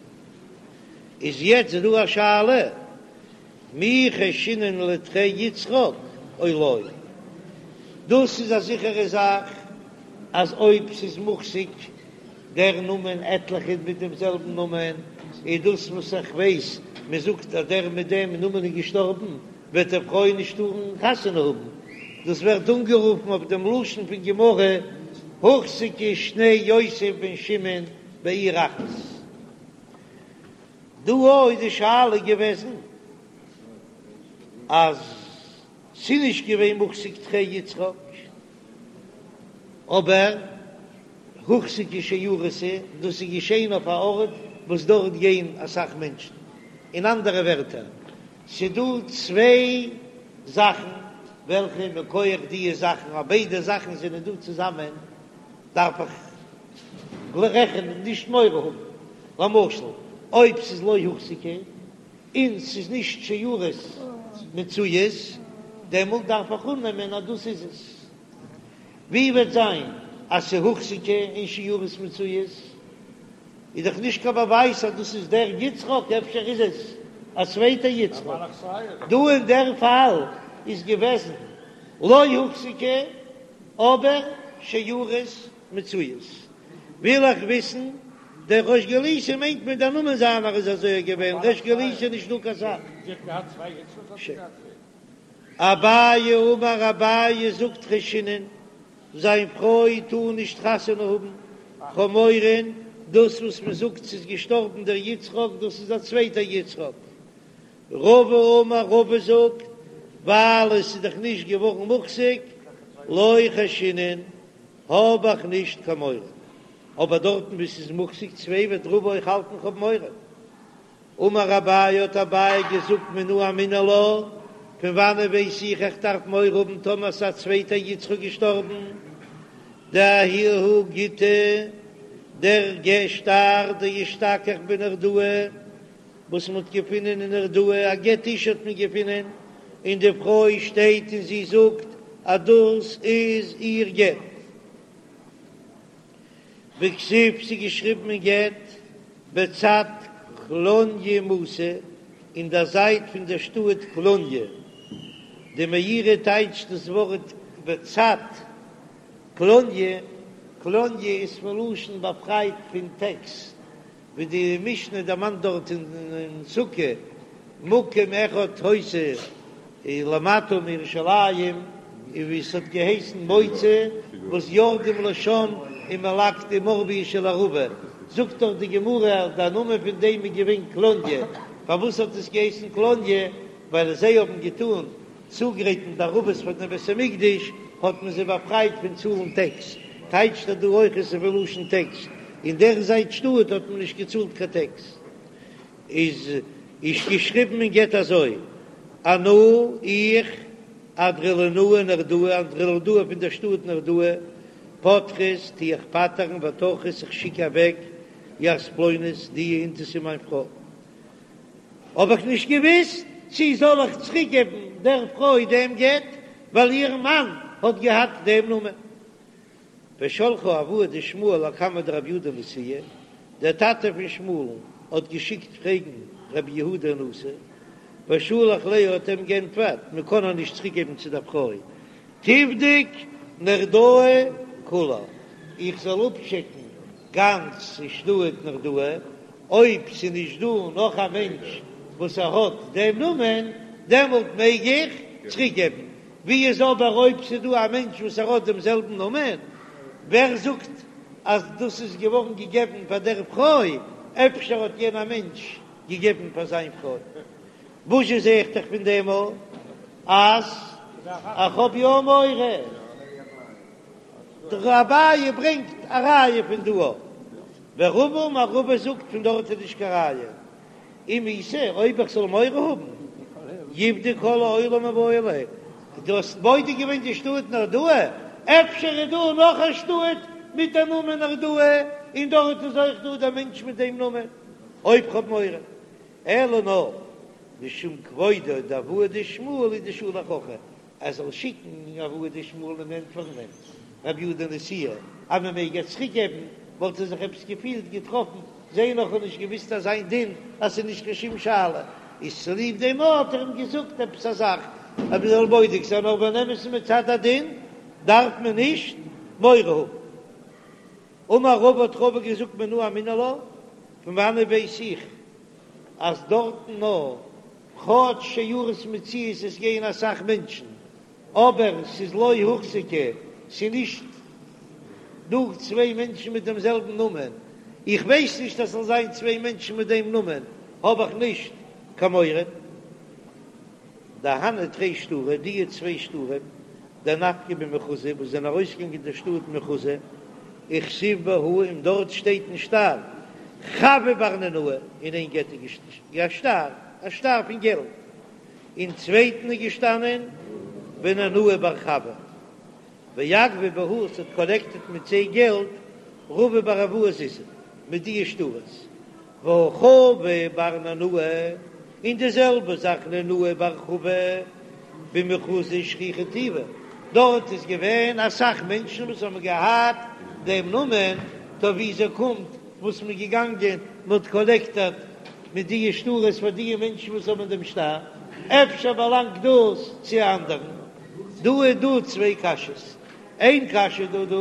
איז יעצט דא א שאלה, מי חיישינן לתרי יצחק או לא? דאס איז א זיכערע זאך אז אויב ס'איז מוחזק דער נאמען עטליכע מיט דעם זעלבן נאמען, איז דאס וואס איך ווייס, מען זאגט אז דער מיט דעם נאמען איז געשטארבן, וועט די פרוי נישט טארן חתונה האבן. דאס ווערט אנגערופן אויף דעם לשון פון גמרא, הוחזקו שני יוסף בן שמעון בעיר אחת. דא איז די שאלה געוועזן אז ס'איז נישט געווען מוחזק תרי יצחק, אבער הוחזקו שיירות, דאס איז געשען אויף א ארט וואס דארט גייען אסאך מענטשן. אין אנדערע ווערטער, ס'דא צוויי זאכן וועלכע מכח דיע זאכן, אז ביידע זאכן זענען דא צוזאמען, דארף איך רעכענען נישט מורא האבן. למשל. אויב ס'איז לא הוחזקה און ס'איז נישט שערות מצויות, דעמאלט דארף איך אננעמען אז דאס איז עס. ווי וועט זיין אז ס'איז הוחזקה און שערות מצויות? איז דאך נישט קיין באווייז אז דאס איז דער יצחק, אפשר איז עס א צווייטער יצחק. דא אין דער פאל איז געוועזן לא הוחזקה אבער שערות מצויות. וויל איך וויסן, דער ריש גלותא מיינט מען דער נאמען זיינער איז אזוי געווען, ריש גלותא נישט דא קיין סאך. אביי אמר אביי זאגט חיישינן, זיין פרוי טאר נישט חתונה האבן, כ'האב מורא דאס וואס מען זאגט ס'איז געשטארבן דער יצחק דאס איז א צווייטער יצחק. רבא אמר רבא זאגט ווייל עס איז דאך נישט געווארן מוחזק לא חיישינן האב איך נישט קיין מורא, אבער דארטן וואו ס'איז מוחזק צוויי וועט רבא אויך האלטן כ'האב מורא. אמר אביי האט אביי געזאגט מנא אמינא לה, פון וואנען ווייס איך איך דארף מורא האבן טאמער ס'איז א צווייטער יצחק געשטארבן, דההוא גיטא דער גט שטר דאשתכח בנהרדעא וואס מ'האט געפונען אין נהרדעא, א גט אשה האט מען געפונען, און די פרוי שטייט און זי זאגט אז דאס איז איר גט. וכתיב ס'איז געשריבן אין גט בצד קלוניא מתא, אין דער זייט פון דער שטאט קלוניא. די מאירי טייטשט דאס ווארט בצד קלוניא, קלוניא איז פון לשון באפרייט פון טעקס, ווי די משנה דערמאנט דארט אין סוכה, מקום אחד היתה למטה מירושלים, און ווי עס האט געהייסן מוצא, וואס יורדים לשם ומלקטים עורבית של ערבה, זאגט דאך די גמרא אז דער נאמען פון דעם איז געווען קלוניא, פארוואס האט עס געהייסן קלוניא? ווייל זיי האבן געטאן צוגרייטן די ערבות פאר דעם בית המקדש, האט מען זיי באפרייט פון צאלן טעקס, טייטשט ער דא אויך עס איז פון לשון טעקס, אין דער זייט שטאט האט מען נישט געצאלט קיין טעקס. איז איז געשריבן אין גט אזוי, אנא איך אנדרולינאי נהרדעא, אנדרולינאי פון דער שטאט נהרדעא, פטרית טו איך פטר'ן וטרחית איך שיק אוועק ית פלונית די אינתתא מיין פרוי. האב איך נישט געוויסט צי זאל איך צוריק געבן דער פרוי דעם גט ווייל איר מאן האט געהאט דעם נאמען. ושלחה אבוה דשמואל לקמיה דרבי יהודה נשיאה, דער טאטע פון שמואל'ן האט געשיקט פרעגן רבי יהודה נשיא, ושלח ליה האט אים גענטפערט מען קען איר נישט צוריק געבן צו דער פרוי, תבדוק נהרדעא כולה, איך זאל אפטשעקן גאנץ שטאט נהרדעא, אויב ס'איז נישט דא נאך א מענטש וואס ער האט דעם נאמען, דעמאלט מעג איך צוריק געבן, ווי איז אבער אויב ס'איז דא א מענטש וואס ער האט דעם זעלבן נאמען, ווער זאגט אז דאס איז געווארן געגעבן פאר דער פרוי, אפשר האט יענער מענטש געגעבן פאר זיין פרוי. וואזשע זע איך דאך פון דעם אז איך האב יא מורא. דער אביי ברענגט א ראיה פון דא. ורבא אמר רבא זאגט פון דארט איז נישט קיין ראיה. אם איתא אויב איך זאל מורא האבן יבדוק כל העולם מיבעי ליה. דו האסט בודק געווען די שטאט נהרדעא? אפשר איז דא נאך א שטאט מיט דעם נאמען נהרדעא און דארט איז אויך דא דער מענטש מיט דעם נאמען. אויב כ'האב מורא. אלא נאר משום כבודו דאבוה דשמואל הוא דשלח הכי, ער זאל שיקן אבוה דשמואל און ענטפערן אים רבי יהודה נשיאה אז מען מעג איר צוריק געבן, וואלט ער זיך עפעס געפילט געטראפן, זיי נאך האבן נישט געוויסט אז זיין דין אז ס'איז נישט קיין שום שאלה, איז צוליב דעם האט ער אים געזאגט עפעס א זאך אז מען זאל בודק זיין, אבער אין אמת'ן מצד הדין דארף מען נישט מורא האבן. אמר רבא האט רבא געזאגט מנא אמינא לה, פון וואנעט ווייס איך אז דארטן נאר כאטש שערות מצויות עס גייען אסאך מענטשן אבער ס'איז לא הוחזקה ס'איז נישט דא צוויי מענטשן מיט דעם זעלבן נאמען, איך ווייס נישט אז ס'זאל זיין צוויי מענטשן מיט דעם נאמען האב איך נישט קיין מורא. דהנהו תרי שטרי, די צוויי שטרים, דנפקי במחוזא, וואס זענען ארויסגעגאנגען אין דער שטאט מחוזא, וכתיב בהו, און דארט שטייט אין שטר, חבא בר ננאי, אין איין גט איז געשטאנען א שטר, א שטר פון געלט, אין צווייטן איז געשטאנען וננאי בר חבא, ואגבי בהו, עס האט קאלעקטעט מיט זיי געלט רבא בר אבוה זוזי, מיט די שטרות. והא חבא בר ננאי, און די זעלבע זאך ננאי בר חבא במחוזא שכיחא טובא, דארט איז געווען אסאך מענטשן וואס האבן געהאט דעם נאמען, טא וויאזוי קומט וואס מ'איז געגאנגען מ'האט קאלעקטעט מיט די שטרות פאר די מענטשן וואס האבן דעם שטר, אפשר באלאנגט דאס צו א אנדערן? דא איז דא צוויי קשיות, איין קשיא דא דא.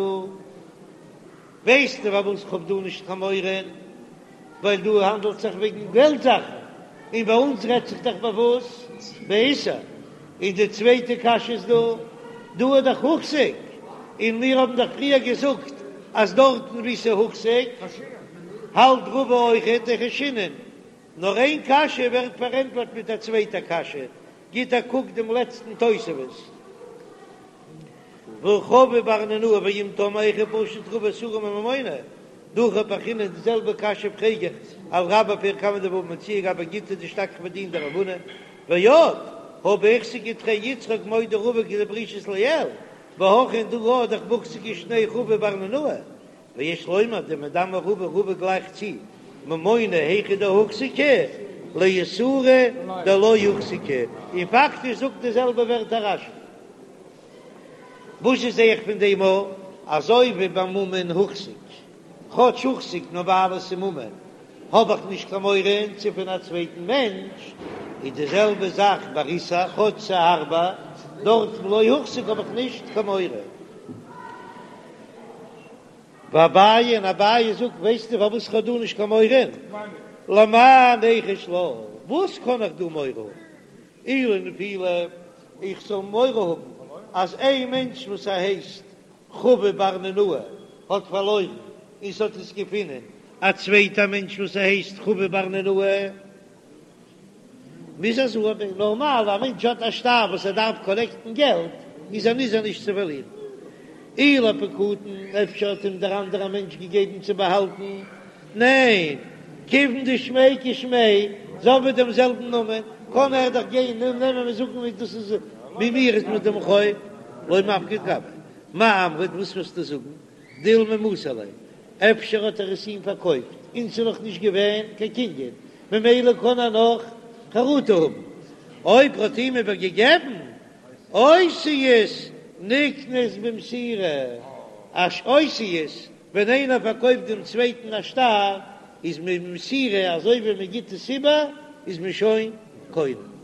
ווייסטו פארוואס כ'האב דא נישט קיין מורא? ווייל דא האנדלט זיך וועגן געלט זאכן, און ביי אונז רעדט זיך דאך ביי וואס? באיסור. און די צווייטע קשיא איז דא, דא איז דאך הוחזק, און מיר האבן דאך פריער געזאגט אז דארטן וואו ס'איז הוחזק האלט רבא אויכעט דחיישינן. נאר איין קשיא ווערט פארענטפערט מיט א צווייטע קשיא, גיט א קוק דעם לעצטן תוספות. והא חבא בר ננאי ואם תאמר היכי פשיט רבא איסורא מממונא, דהכי פרכינן די זעלבע קשיא פרעג איך על רבה פרק קמא דבבא מציעא גבי גיטא דאשתכח בדין דרב הונא, ועוד הא בהחזיקו תרי יצחק מודה רבא כדפרישית לעיל, והכא און דא איז דאך בהוחזקו שני חבא בר ננאי, ויש לומר דמדמי רבא רבא גלייכט צו ממונא היכא דהוחזקו לאיסורא דלא הוחזקו, און פאקטיש זאגט די זעלבע ווערטער רש"י. וואס זע איך פון דעם א? אזוי ווי ביי ממון הוחזק, כאטש הוחזק נאר ווייל עס איז ממון האב איך נישט קיין מורא ס'איז פון א צווייטן מענטש, איז די זעלבע זאך ביי איסור, כאטש ס'איז הארבער, דארט לא הוחזק האב איך נישט קיין מורא. ואביי און אביי זאגט, ווייסטו פארוואס איך האב דא נישט קיין מורא? למאי ניחוש לה, וואס קען איך דא מורא האבן? אי לנפילה, איך זאל מורא האבן אז איין מענטש וואס ער הייסט חבא בר ננאי האט פארלוירן און ס'האט עס געפונען א צווייטע מענטש וואס ער הייסט חבא בר ננאי, מוז ער זאגן, נארמאל א מענטש האט א שטר וואס ער דארף קאלעקטן געלט, איז ער נזהר נישט צו פארלירן. אי לפקדון, אפשר האט אים דער אנדערע מענטש געגעבן צו באהאלטן, ניין, כיוון דשמיה כשמיה, זיי האבן דעם זעלבן נאמען, קען ער דאך גיין און נעמען און זאגן ווי דאס איז ווי מיר איז מיט דעם חוב, לא מפקיד גביה. מאי אמרת, וואס וועסטו זאגן? דילמא מסר ליה, אפשר האט ער עס אים פארקויפט און ס'איז נאך נישט געווען קיין קנין, ממילא קען ער נאך חרטה האבן. אויב ער האט אים איבער געגעבן אותיות נקנות במסירה, אז אותיות ווען איינער פארקויפט דעם צווייטן א שטר איז מען במסירה, אזוי ווי מען גיט עס איבער איז מען שוין קונה.